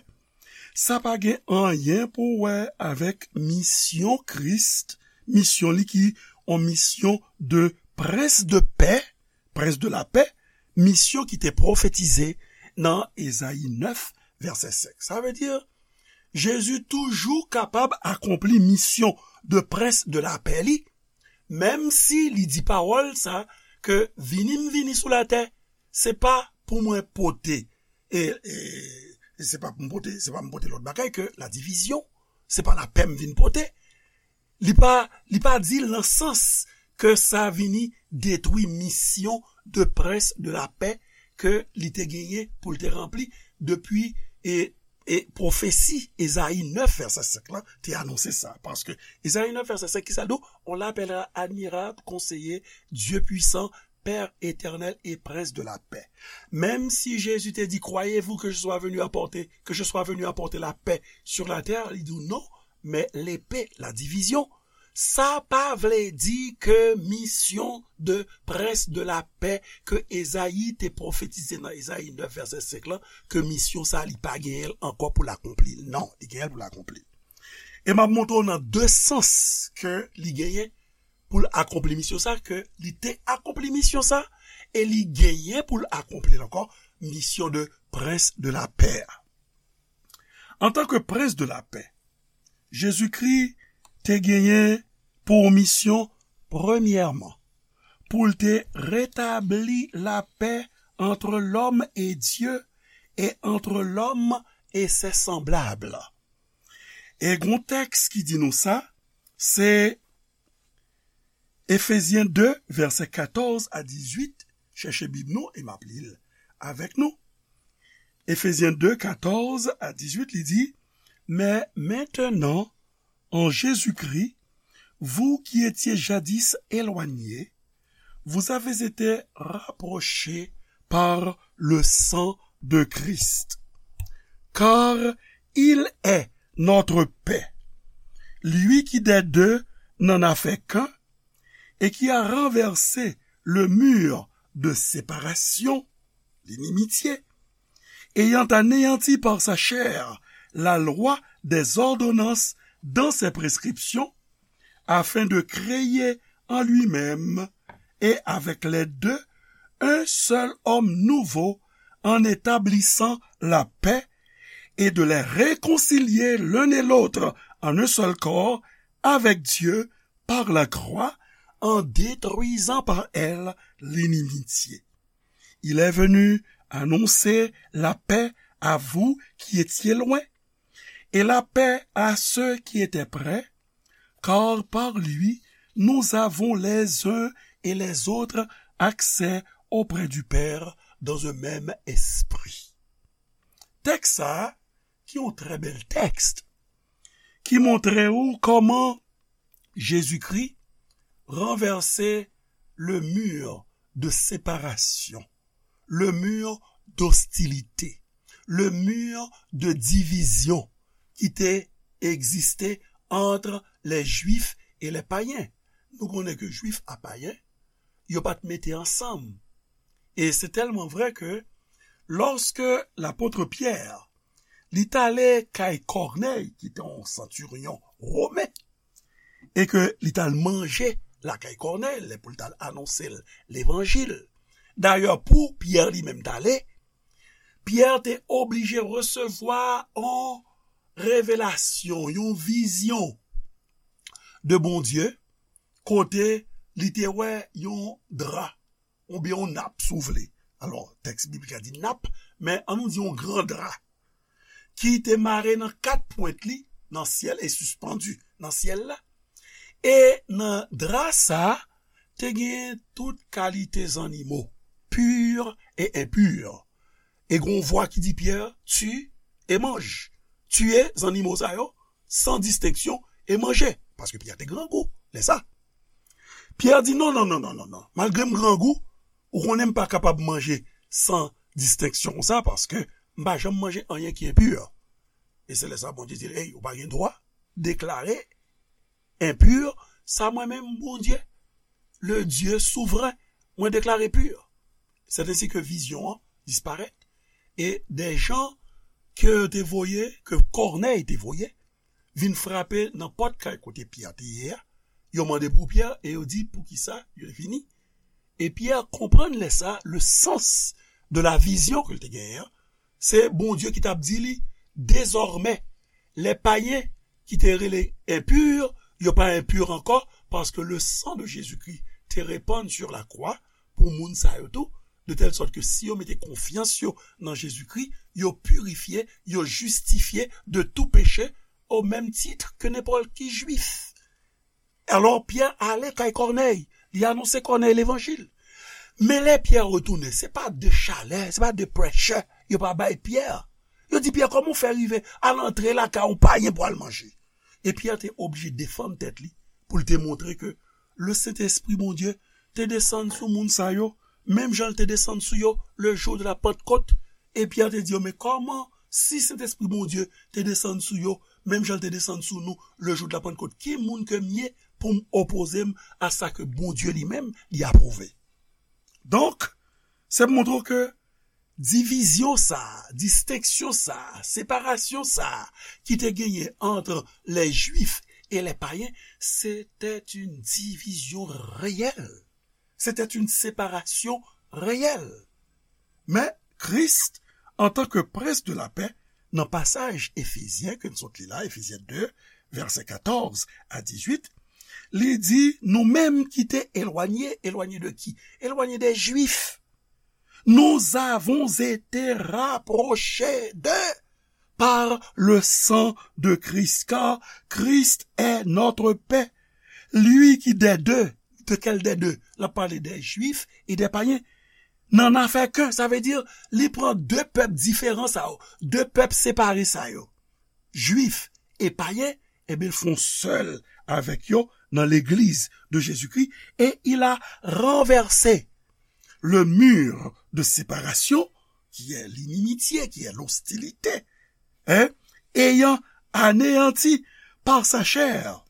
Sa pa gen anyen pou wè avèk misyon Kris, misyon li ki yon misyon de prens de pè, prens de lapè, misyon ki te pwofetize nan Ezayi nèf, vèsè senk. Sa vle di, Jezi toujou kapab akonpli misyon de prens de lapè li, menm si li di pawòl sa, ke vini m vini sou latè, se pa pou mwen pote, e, e, e se pa pou m pote, se pa m pote lòt bagay ke ladivizyon, se pa lapè m vin pote. Li pa, li pa di l nan sans ke sa vini detwi misyon de prens de lapè ke li te genyen pou l te ranpli depi, e, e pwofesi Ezayi nèf vèsè senk lan te anonse sa. Paske Ezayi nèf vèsè senk ki sa l di w? On l'appellera admirable, conseiller, Dieu puissant, Père éternel et prince de la paix. Menm si Jezi te di, croyez-vous que je sois venu apporter, que je sois venu apporter la paix sur la terre, li di w non, mais l'épée, la division. Sa pa vle di ke misyon de prens de lapè ke Ezayi te pwofetize nan Ezayi nèf vèsè senk lan, ke misyon sa li pa genyen l ankò pou l akonpli l. Non, li genyen l pou l akonpli l. E m ap montre w nan de sans ke li genyen pou l akonpli misyon sa, ke li te akonpli misyon sa, e li genyen pou l akonpli l ankò, misyon de prens de lapè a. Antanke prens de lapè, Jezikri te genyen pou misyon, premyèman, pou l te retabli lapè entre l'homme et Dieu et entre l'homme et ses semblables. E gon tèks ki di nou sa, se Efezyen de, vèsè katòz a dizuit, chèche Bib nou e m ap li l avèk nou. Efezyen de, katòz a dizuit, li di, mais maintenant, en Jésus-Christ, vous qui étiez jadis éloignés, vous avez été rapprochés par le sang de Christ. Car il est notre paix. Lui qui des deux n'en a fait qu'un et qui a renversé le mur de séparation, l'inimitié, ayant anéanti par sa chair la loi des ordonnances dans ses prescriptions, afin de créer en lui-même et avec les deux un seul homme nouveau, en établissant la paix, et de les réconcilier l'un et l'autre en un seul corps avec Dieu par la croix, en détruisant par elle l'inimitié. Il est venu annoncer la paix à vous qui étiez loin, et la paix à ceux qui étaient près, car par lui, nous avons les uns et les autres accès auprès du Père dans un même esprit. Tèks sa a, ki yon trè bèl tèks, ki montre ou kòman Jezikri ranvèse le mur de séparation, le mur d'hostilité, le mur de division ki te egziste entre les Juifs et les païens. Nou konnen ke Jwif a payen, yo pa t mete ansanm. E se tèlman vrè ke lòske lapot Pyè, li t ale kay Kònèy, ki te yon santiryon women, e ke li t al manje lakay Kònèy, lè pou l t al anonse l levanjil. Dayè, pou Pyè li menm t ale, Pyè te oblije resevwa yon revelasyon, yon vizyon de Bondye, kote li te wè yon dra, oubyen yon nap, si w vle. Alò, tèks biblik la di nap, men ann nou di yon gran dra, ki te mare nan kat pwent li nan syèl e sispann nan syèl la. E nan dra sa a, te gen tout kalite zannimo, pur e enpur. E gen yon vwa ki di Pyè, tue et mange. Tiye zannimo sa yo, san distenksyon, e manje. Paske Pyè te grangou, lè sa. Pyè di, non, non, non, non, non, non. Malgre m grangou, ou konnen m pa kapab manje san distenksyon konsa, paske m pa janm manje anyen ki enpur. E se lè sa Bondye di l, ey, ou pa gen dwa deklare enpur sa mwen menm, Bondye, le Dieu souvren, mwen deklare pur. Se ensi ke vizyon an disparèt. E de jan ke yo te voye, ke Kònèy te voye, vin frape nan pòt kay kote Pyè te ye a. Yo mande pou Pyè e yo di poukisa yo te vini. E Pyè konprann lè sa le sens de la vision ke l te genyen an. Se Bondye ki t ap di li, dezòmè, lè payen ki te rele enpir, yo pa enpir ankò, paske le sang de Jésus-Christ te repann sur la croix pou moun sa yo tou, de telle sorte que si yo mete konfyans yo nan Jezikri, yo pirifye, yo jistifye de tout péché au même titre que n'importe qui juif. Alò, Pyè ale kay Kònèy, li anonse Kònèy levanjil. Men lè Pyè retounen, se pa de chalè, se pa de pressure yo pa bay Pyè. Yo di Pyè, kòman w fè rive al antre lakay yon payen pou al manje? E Pyè te oblije defann tèt li pou l te montre ke le Sentespri Bondye te desann sou moun sa yo, menm jan l te desann sou yo le jou de la Pantkot. E Pyè te di yo, men kòman, si Sentespri Bondye te desann sou yo, menm jan l te desann sou nou le jou de la Pantkot, ki moun ke m ye pou m opoze m a sa ke Bondye li menm li apwouve? Donk, se pou montre w ke divizyon sa a, distenksyon sa a, separasyon sa a ki te genyen entre les Juifs et les païens, c'était une division réelle. C'était une séparation réelle. Men Kris, antanke Prens de la Pè, nan pasaj Efezyen ke n sot li la, Efezyen de, vèsè katòz a dizuit, li di, nou menm ki te elwanye, elwanye de ki? Elwanye de Jwif. Nous avons été rapprochés d'eux par le sang de Christ, car Christ est notre paix. Lui qui des deux, de quel des deux? L ap pale de Jwif e de payen. Nan afè ke, sa vle di, li pran de pèp diferan sa yo, de pèp separe sa yo. Jwif e payen, ebyen, l fè yon sèl avèk yo nan legliz de Jezikri, et il a renversé le mur de séparation, qui est l'inimitié, qui est l'hostilité, hein, ayant anéanti par sa chair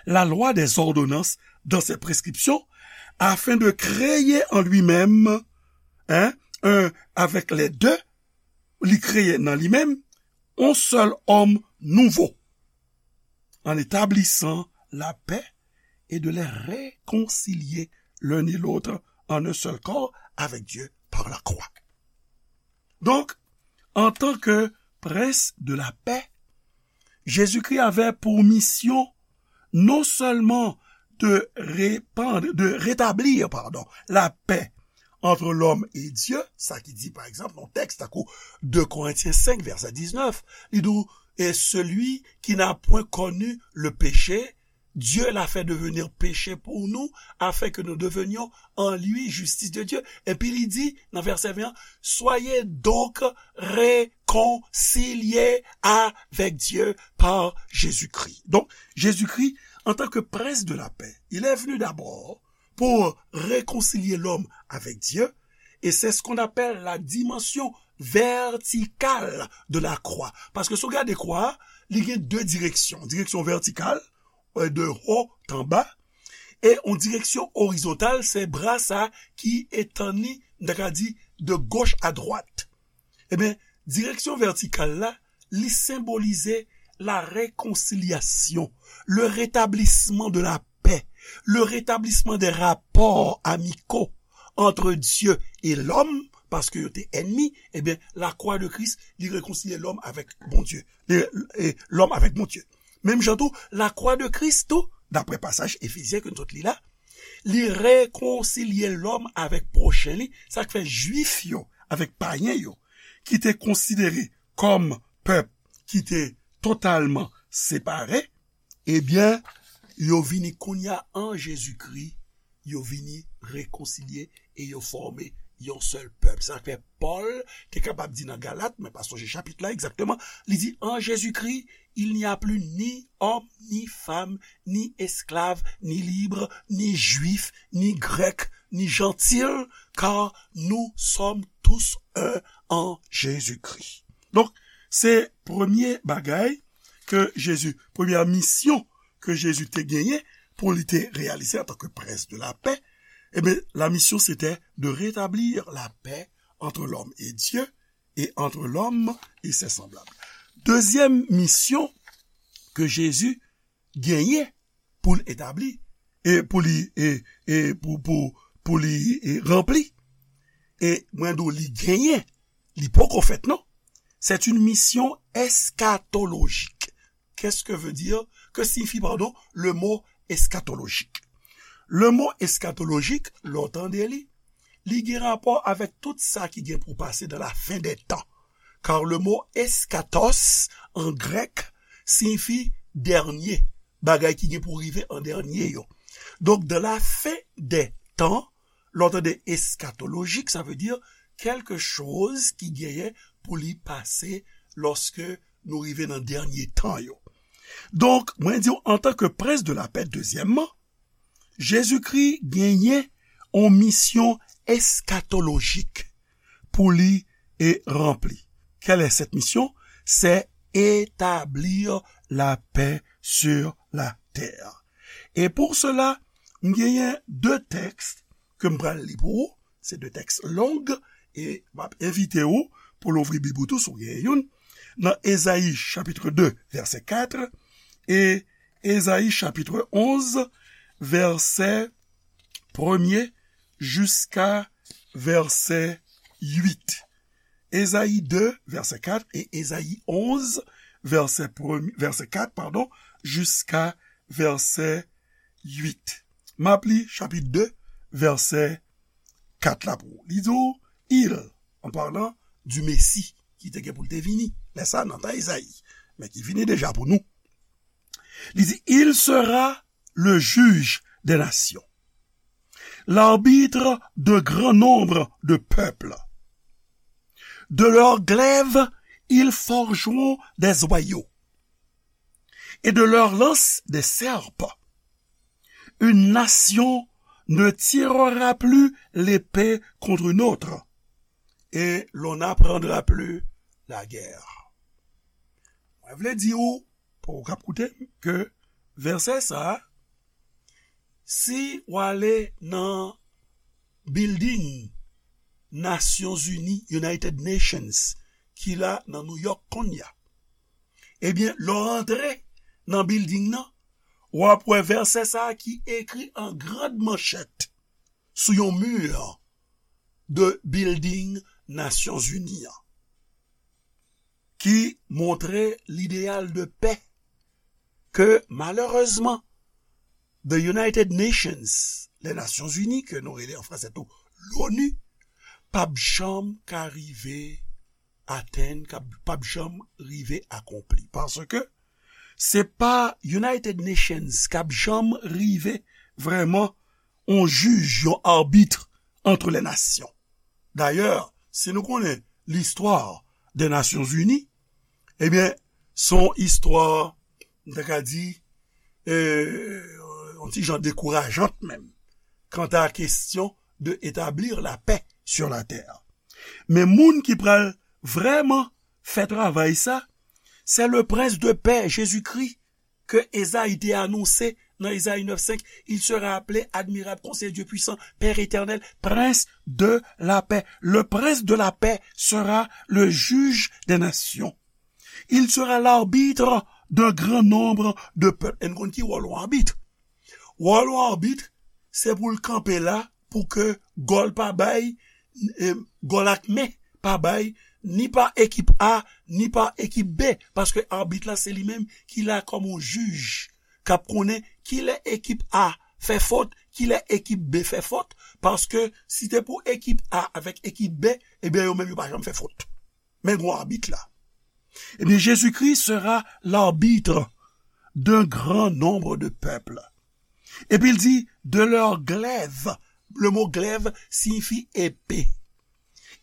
la loi des ordonnances dans ses prescriptions, afin de créer en lui-même, hein, un, avec les deux, li kreye nan li menm, yon sèl òm nouvo, en établissant la paix et de les réconcilier l'un et l'autre en un seul corps avec Dieu par la croix. Donc, en tant que prince de la paix, Jésus-Christ avait pour mission non seulement de répandre, de rétablir, pardon, la paix entre l'homme et Dieu, sa ki di, pa egzanp, nan tèks tankou de Korentyen senk, vèsè diznèf, li di, et celui qui n'a point connu le péché, Dieu l'a fait devenir péché pour nous, afin que nous devenions en lui justice de Dieu. Epi li di, nan vèsè ven an, soyez donc réconciliés avec Dieu par Jésus-Christ. Donc, Jésus-Christ, en tant que prince de la paix, il est venu d'abord pour réconcilier l'homme avec Dieu, et c'est ce qu'on appelle la dimension verticale de la croix. Paske si w gade kwa a, li gen de direksyon. Direksyon vètikal, euh, de haut en bas, e yon direksyon orizontal, se bra sa ki etann li, m ta ka di, de gauche à droite. Ebyen, direksyon vètikal la, li senbolize la réconciliation, le rétablissement de la paix, le rétablissement des rapports amicaux entre Dieu et l'homme, paske yo te ènmi, ebyen, la croix de Christ, li rekonsilye lòm avèk Bondye, li, e lòm avèk Bondye. Menm jan tou, la croix de Christ tou, daprè pasaj Efezyen ke nou sot li la, li rekonsilye lòm avèk pwochen li, sa k fè Jwif yo avèk payen yo, ki te konsidere kòm pèp ki te totalman separe, ebyen, yo vini kounye a an Jezikri, yo vini rekonsilye e yo fòme yon sèl pèp. Sa fè Pòl te kapab di nan Galat, mwen pa sonje chapit la egzakteman, li di, en Jésus-Christ, il n'y a plus ni homme, ni femme, ni esclave, ni libre, ni juif, ni grec, ni gentil, car nous sommes tous un en Jésus-Christ. Donk, se premye bagay ke Jezi, premyè misyon ke Jezi te genyen pou li te reyalize antanke prens de la pè, ebyen, la mission c'était de rétablir la paix entre l'homme et Dieu et entre l'homme et ses semblables. Dezyèm misyon ke Jezi genyen pou l etabli, e pou li, e, e pou, pou, pou li, e, ranpli. E mwen di w li genyen, li poko fèt non. C'est une mission eschatologique. Qu'est-ce que veut dire, que signifie, pardon, le mot eschatologique? Le mot eschatologique, lè w tande li, li gen rapò avèk tout sa ki gen pou pase dans la fin des temps. Car le mot eschatos en grec signifie dernier, bagay ki gen pou rive an dènye yo. Donc, dans la fin des temps, lè w tande eschatologique, ça veut dire quelque chose ki genyen pou li pase lòske nou rive nan dènye tan yo. Donk, mwen di w, antanke prens de lapè, dezyèmman, Jezikri genyen yon misyon eskatolojik pou li e ranpli. Quelle est cette mission? C'est établir la paix sur la terre. Et pour cela, m genyen de tèks ke m pral li pou ou. Se de tèks long, e m ap envite ou pou louvri Bib ou tou, si w genyen youn, nan Ezayi chapit de, vèsè kat, e Ezayi chapit onz, vèsè premye jiska vèsè uit. Ezayi de, vèsè kat, e Ezayi onz, vèsè premye, vèsè kat, padon, jiska vèsè uit. M ap li chapit de, vèsè kat la pou ou. Li di w, il, en parlant du Messie, ki te gen pou l te vini, lè sa nan tan Ezayi, men ki vini deja pou nou. Li di, il sera le juge des nations, l'arbitre de grand nombre de peuples. De leurs glaives, ils forgeront des joyaux, et de leurs lances des serpents. Une nation ne tirera plus l'épée contre une autre, et l'on n'apprendra plus la guerre. Mwen vle di ou, pou ou k ap koute m, ke vèsè sa a, si w ale nan building Nasyonzini, United Nations, ki la nan New York kounye a, ebyen, lè w rantre nan building nan, w ap wè vèsè sa a ki ekri an grand manchèt sou yon mi de building Nasyonzini an, ki montre lideyal de pè ke, malerezman, the United Nations, les Nations Unies, ke nou rele an franse tou l'ONU, p ap janm ka rive atenn, k ap, p ap janm rive akonpli. Paske se pa United Nations k ap janm rive vrèman yon jij, yon arbit entre les nations. Dayè, si nou konnen listwa de Nasyonzini, ebyen, se yon istwa, m ta ka di, e, yon ti jan dekourajant menm, kanta kesyon de établir la paix sur la terre. Men moun ki pral vrèman fè travay sa, se le prince de paix, Jezikri, ke Ezayi te anonse nan Ezayi nèf senk, il sera appelé admirable, conseiller, Dieu puissant, Père éternel, prince de la paix. Le prince de la paix sera le juge des nations. Il sera l'arbitre d'un grand nombre de peuples. E n konn ki wòl yon abit. Wòl yon abit, se pou l kanpe la, pou ke gòl pa bay, e, gòl ak men pa bay, ni pa ekip A, ni pa ekip B, paske abit la se li menm ki la kòm yon jij, k ap konnen kilè ekip A fè fot, kilè ekip B fè fot, paske si te pou ekip A avèk ekip B, ebyen yo menm yo pa janm fè fot. Men gwo abit la. Ebyen, Jezikri sera l'arbitre d'un grand nombre de peuples. Epi l di, de leurs glaives. Le mot glaive signifie épée.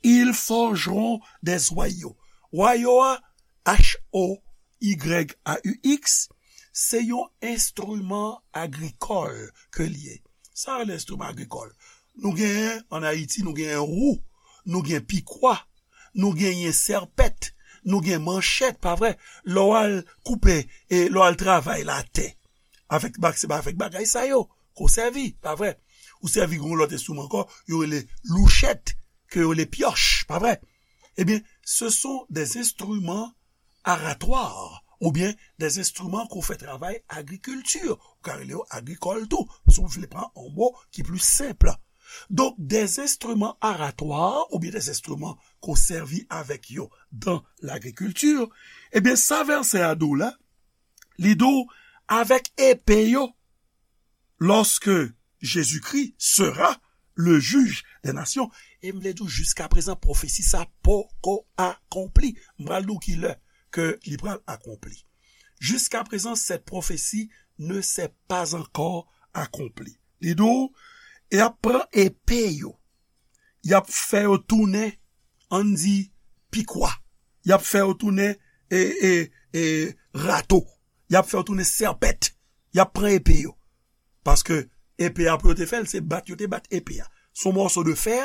Ils forgeront des joyaux. Joyaux a, H O Y A U X, se yon enstriman agrikòl ke l ye. Sa rele enstriman agrikòl. Nou genyen, ann Ayiti, nou genyen wou, nou gen pikwa, nou genyen sèpèt, nou gen manchèt, pa vre? Lè w al koupe, e lè w al travay latè, avèk bak-, se pa avèk bagay sa yo ke w sèvi, pa vre? Ou sèvi yon lòt enstriman ankò, yo rele louchèt. ke yo le pioche, pa vre? Ebyen, ce sont des instruments aratoires, oubyen des instruments qu'on fait travay agrikilti, ou ka rele yo agrikòl tou, si w vle pran yon mo ki pli senp. Donk, des instruments aratoires, oubyen des instruments qu'on sèvi avèk yo dans l'agriculture, ebyen, sa vèsè a di w la, li di w, avèk epe yo, lorsque Jésus-Christ sera le juge des nations. E m vle di w, jiskaprezan, pwofesi sa poko akonpli. M pral di w ki lè ke li pral akonpli. Jusqu'à présent, cette prophétie ne s'est pas encore accomplie. Li di w, y ap pran epe yo, y ap fè yo tounen, ann di, pikwa. Y ap fè yo tounen, e, e, e, rato. Y ap fè yo tounen sèpèt. Y ap pran epe yo. Paske epe a pou yo te fè l, se bat yo te bat epe a. Se yon mòso de fè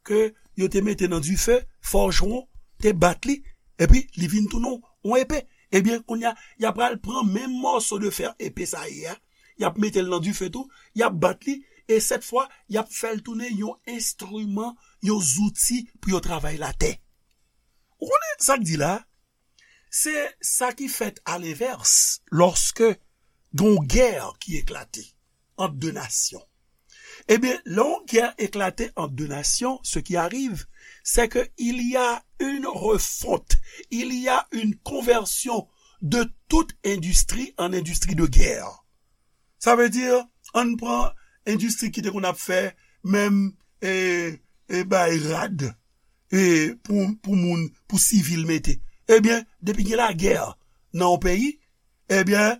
ke yo te mete nan dife, fòjwon te bat li, epi li vin tounen yon epe. Ebyen, kounye a, y ap pral pran menm mòso de fè epe sa ye a, y ap mete l nan dife tou, y ap bat li, e sèt fwa, y ap fè l tounen yon enstriman, yon zouti pou yo travay latè. Ou konnen sa k di la? Se sa ki fèt alenvès, lòske gen yon gè ki eklate ant de nasyon. Ebyen, lè yon gè eklate ant de nasyon, ce qui arrive, c'est que il y a une refonte, il y a une conversion de toute industrie en industrie de guerre. Sa vle di, ann pran endistri ki te konn ap fè menm, e, e bay rad, e, pou, pou moun, pou sivil mete. Ebyen, depi gen lagè nan yon peyi, ebyen,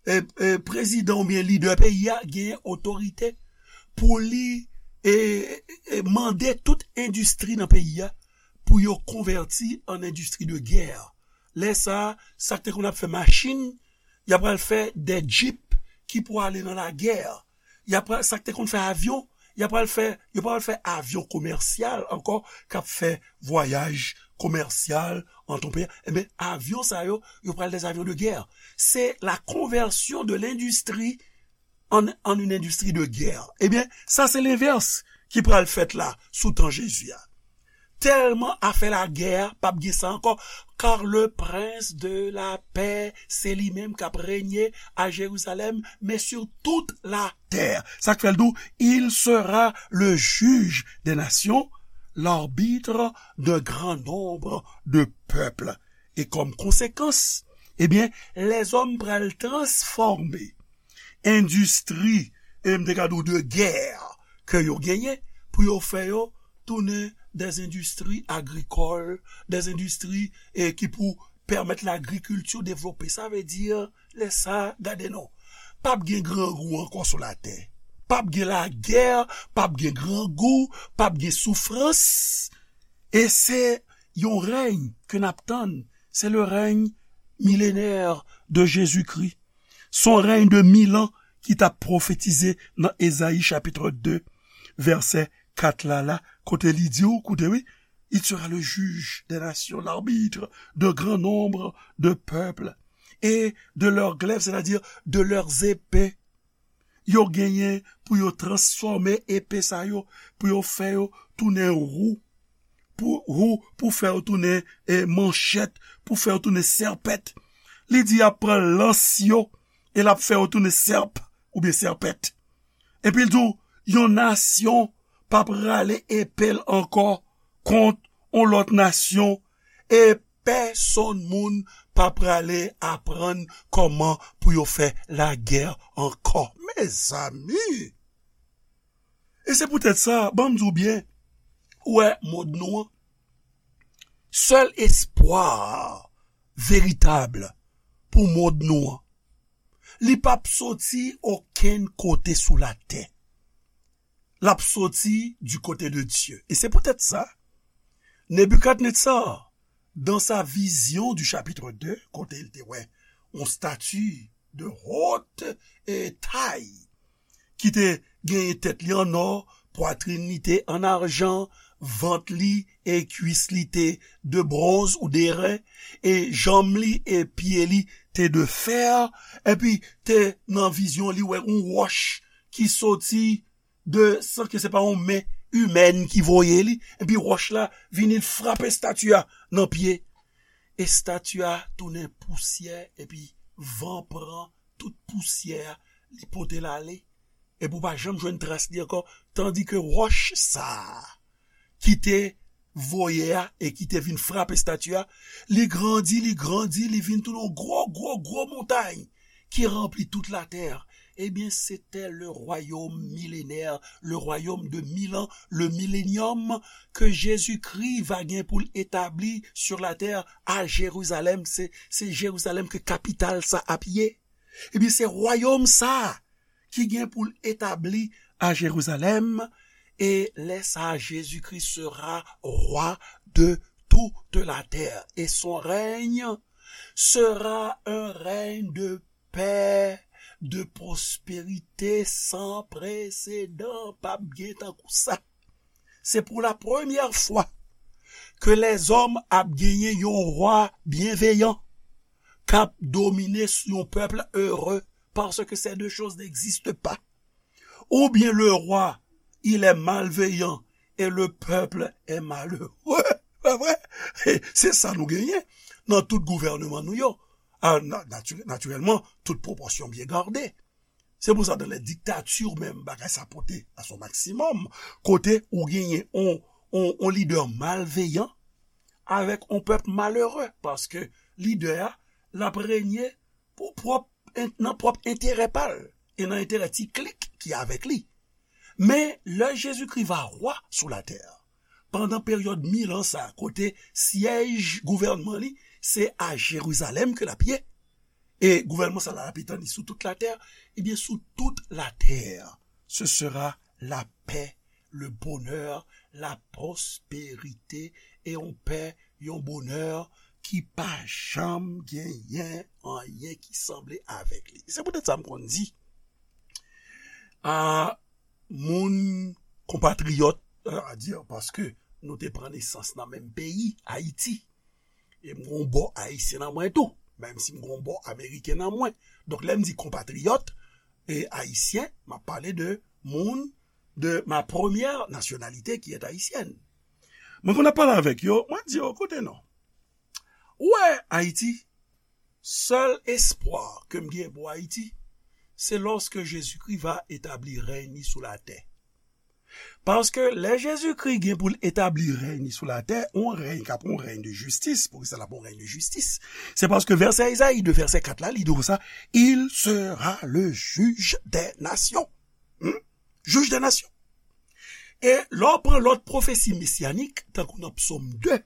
e, e, prezidan oubyen lidè peyi a genyen otorite pou li, e, e, mande tout endistri nan peyi a pou yo konvèti an endistri de gè. Lè sa a, sa k te konn ap fè machin, y ap pral fè de djip ki pou ale nan lagè. Y ap pral, sa k te konn fè avyon, y ap pral fè, yo pral fè avyon komèsyal ankò, k ap fè vwayaj komèsyal ant yon peyi. Ebyen, avyon sa yo, yo pral des avions de guerre. C'est la conversion de l'industrie en, en une industrie de guerre. Ebyen, sa se lenvès ki pral fèt la, sou tan Jezi a. Tèlman afè lagè a, p ap gen sa ankò, car le prince de la paix, se li menm k ap renye a Jerizalèm, men sur toute la terre. Sa k fè l di w, il sera le juge des nations, l'arbitre d'un grand nombre de peuples. E kòm konsekans, ebyen, lèzòm pral transfòme endistri, e m te ka di w de gè ke yo genyen, pou yo fè yo tounen des industries agricoles, des industries, e, ki pou pèmèt lagrikilti devlope. Sa vle di, lè sa, gade non. P ap gen grangou ankò sou latè. P ap gen lagè, p ap gen grangou, p ap gen soufrans. E se yon rèy ke n ap tann. C'est le règne millénaire de Jésus-Christ. Se yon rèy de mil an ki t ap pwofetize nan Ezayi chapit de, vèsè kat la, la, kote li di w, koute wi, il sera le juge des nations, l'arbitre de grand nombre de peuples et de leurs glaives, c'est-à-dire de leurs épées. Yo genyen pou yo transfòme epe sa yo, pou yo fè yo tounen wou, pou wou, pou fè yo tounen, e, manchèt, pou fè yo tounen sèpèt. Li di y ap pran lans yo, e l ap fè yo tounen sèp oubyen sèpèt. Epi l di w, yon nasyon pa prale epe l ankò kont yon lòt nasyon, e pèsonn moun pa prale aprann kòman pou yo fè lagè ankò. Mezanmi! E se poutèt sa, ban m di w byen, ou wè mond nou an, sèl espwa veritab pou mond nou an, li p ap soti okenn kote sou latè. L ap soti du côté de Dieu. E se poutèt sa, Nebikadnetsar, dans sa vision du chapitre deux, kote l te wè yon stati de haute, e, taille, ki te genyen tèt li an nò, pwatrin li te an ajan, vant li e kwis li te de bronz ou de ren, e janm li e pye li te de fè, epi te nan vizyon li wè yon wòch ki soti de, san ke se pa yon men imèn ki voye li, epi wòch la vini l frape estati a nan pye. Estati a tounen pousyè, epi van pran tout pousyè a, li pote l ale, epi w pa janm jwenn tras li ankò, tandi ke wòch sa a ki te voye a e ki te vin frape estati a, li grandi, li grandi, li vin tounen yon gwo, gwo, gwo montay ki ranpli tout latè. Ebyen, se te le royaume millénaire, le royaume de mille ans, le millénium ke Jezikri va gen pou l etabli sur la terre à Jérusalem. Se, se Jerizalèm ke kapital sa ap ye. Ebyen, se wayòm sa a ki gen pou l etabli à Jérusalem, et lè sa a, Jésus-Christ sera roi de toute la terre, et son règne sera un règne de paix, de prospérité sans précédent. P ap gen tankou sa. Se pou la premyè fwa ke lèzòm ap genyen yon wa byenveyan k ap domine sou yon pèp ere, paske ces deux choses n'existent pas. Oubyen le roi, il est malveillant et le peuple est malheureux. Pa vre? Se sa nou genyen nan tout gouvènman nou yo. A, na-, nati-, natirèlman, tout pwopòsyon byen gade. Se pou sa, dans les dictatures menm, bagay sa pote à son maximum, kote ou genyen on, on, on lidè malveyan avèk on pèp malere, paske lidè a, l ap renye pou pwòp, nan pwòp enterè pa l e nan enterè ti klik ki avèk li. Men, lè Jezikri va wa sou latè, pandan peryòd mil an sa, kote syèj gouvènman li, se a Jerizalèm ke l ap ye, e gouvènman sa la, l ap etann li sou tout latè, ebyen, sou tout latè, ce sera la paix, le bonheur, la prospérité, e yon pè, yon bonè ki pa janm genyen anyen ki sanble avèk li. Se poutèt sa m konn di, a, moun konpatriyòt, euh, a di, paske nou te pran nesans nan menm peyi, Ayiti. E m gon bò ayisyen nan mwen tou, menm si m gon bò ameriken nan mwen. Donk, lè m di konpatriyòt e ayisyen, m ap pale de moun de ma première nationalité qui est haïtienne. Mwen konn ap pale avèk yo, mwen di yo, koute non. Ou wè, Ayiti, sèl espwa ke m gen pou Ayiti, se lòske Jezikri va etabli rèy li sou latè. Paske lè Jezikri gen pou l etabli rèy li sou latè, on rèy k ap on rèy de jistis, poukisa l ap on rèy de jistis? Se paske vèsè Ezayi de vèsè kat la, li di konsa, il sera le juge des nations. Hmm? Juge des nations. E lè w pran lòt pwofesi mesyanik, tankou nan Psòm de,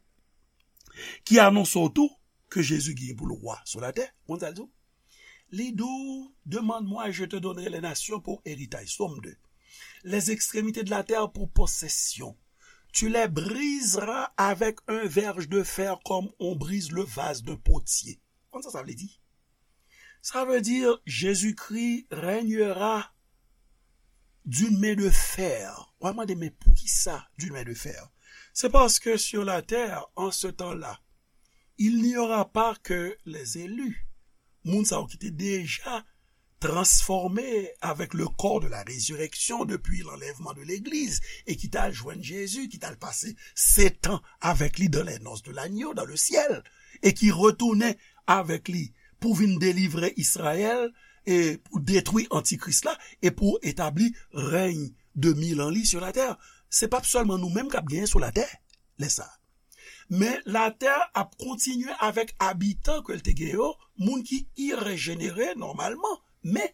ki anonse w tou ke Jezi gen pou l wa sou latè, konn sa l di w? Li di w, demande-moi et je te donnerai les nations pour héritage. Psaume deux. Les extrémités de la terre pour possession. Tu les briseras avec un verge de fer comme on brise le vase d'un potier. Konn sa sa vle di? Sa vle di, Jezikri régnera d'une main de fer. W a mande, men poukisa d'une main de fer? Se paske sur la terre, en ce temps-là, il n'y aura pas que les élus. Moun sa yo ki te deja transformé avec le corps de la résurrection depuis l'enlèvement de l'église et ki t al jwenn Jezi, ki t al pase setan avèk li dans les noces de l'agneau, dans le ciel, e ki retounen avèk li pou vin delivre Izrayèl e pou detwi antikris la e pou etabli rèy de mil an li sur la terre. Se p ap sèlman nou menm k ap genyen sou latè lè sa a. Men latè ap kontinye avèk abitan ke l te gen yo, moun ki irejenere nòmalman. Men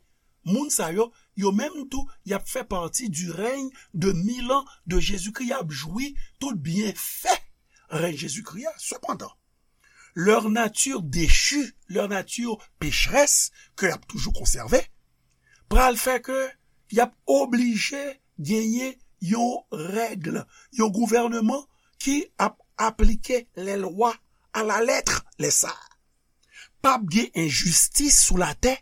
moun sa yo, yo menm tou, y ap fè pati du règne de mil an de Jezikri. Y ap jwi tout byenfè rèy Jezikri a. Sepandan, leur nature déchue, leur nature pécheresse, ke y ap toujou konsève, pral fè ke y ap oblije genyen yon règ, yon gouvènman ki ap aplike lè lwa a la lèt lè sa a. P ap gen enjistis sou latè.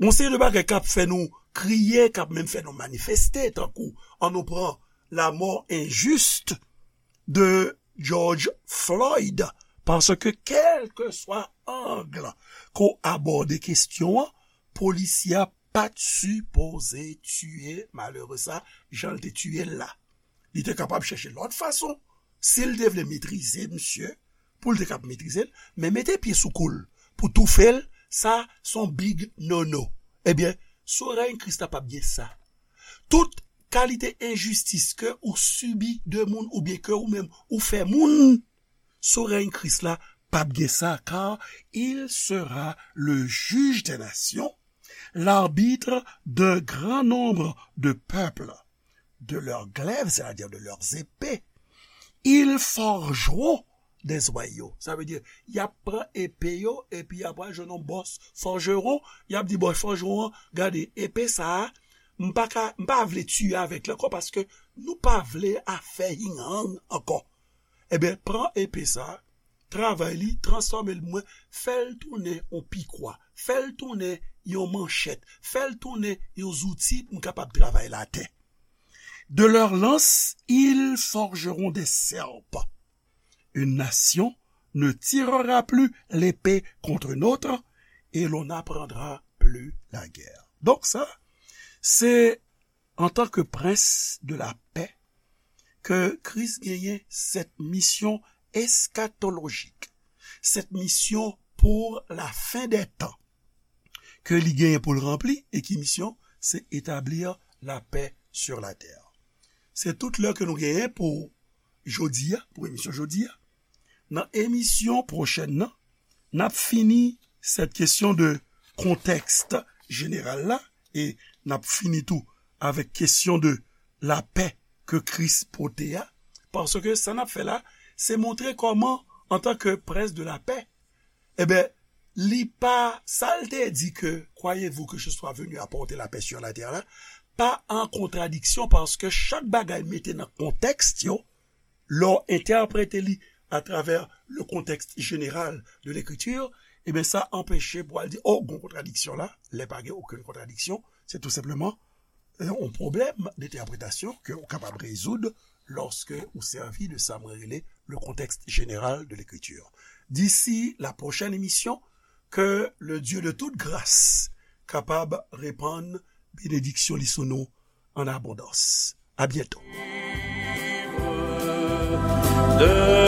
Gon seri de bagay k ap fè nou kriye, k ap menm fè nou manifeste, tankou an nou pran la mort injuste de George Floyd, paske kèlkeswa ang ke w abòde kesyon an, polisye a pa t sipoze tiye malere sa jan l te tiye l la. Li te kapab chèche lòt fason. Si l te vle metrize misye, pou l te kab metrize l, men mete pye sou kou l, pou toufe l, sa s on big no-no. Ebyen, sou rèy Kris la p ap gen sa. Tout kalite enjistis ke ou sibi de moun oubyen ke ou menm ou fè moun, sou rèy Kris la p ap gen sa, car il sera le juge des nations, l'arbitre d'un grand nombre de peuples, de leurs glaives, c'est-à-dire de leurs épées, ils forgeront des joyaux. Sa vle di, y ap pran epe yo, epi y ap al jwenn yon bòs fòjeron, y ap di bòs fòjeron an, gade, epe sa a, m pa ka, m pa vle tiye avèk li ankò, paske nou pa vle afè hing-hang ankò. Ebyen, pran epe sa a, travay li, transfòme l mwen, fè l tounen yon pikwa, fè l tounen yon manchèt, fè l tounen yon zouti pou m kapab travay latè. De leurs lances, ils forgeront des serpents. Une nation ne tirera plus l'épée contre une autre, et l'on n'apprendra plus la guerre. Donk sa, se antan ke prens de la pè ke Kris genyen cette mission eschatologique, cette mission pour la fin des temps, ke li genyen pou l ranpli, e ki misyon? Se établir la paix sur la terre. Se tout lè ke nou genyen pou jodi a, pou emisyon jodi a. Nan emisyon pwochèn nan, n ap fini cette question de contexte général la, e n ap fini tou avèk kesyon de lapè ke Kris pote a, paske sa n ap fè la, se montre kòman, antan ke prens de la pè, ebyen, li pa, sa l te di ke, croyez-vous que je sois venu apporter la paix sur la terre la, pa an kontradiksyon, paske chak bagay mete nan kontèks yo, lè w entèprete li atravè le contexte général de l'écriture, ebyen, sa anpeche pou al di, oh, gon kontradiksyon la, lè pa gen okenn kontradiksyon, se tou senpleman yon pwoblèm de entèpretasyon ke ou kapab rezoud lòske ou sèvi de sa mwen rele le contexte général de l'écriture. D'ici la prochaine émission, ke le Dieu de toute grâce kapab repann benediksyon li sou nou an abondans. A byento. De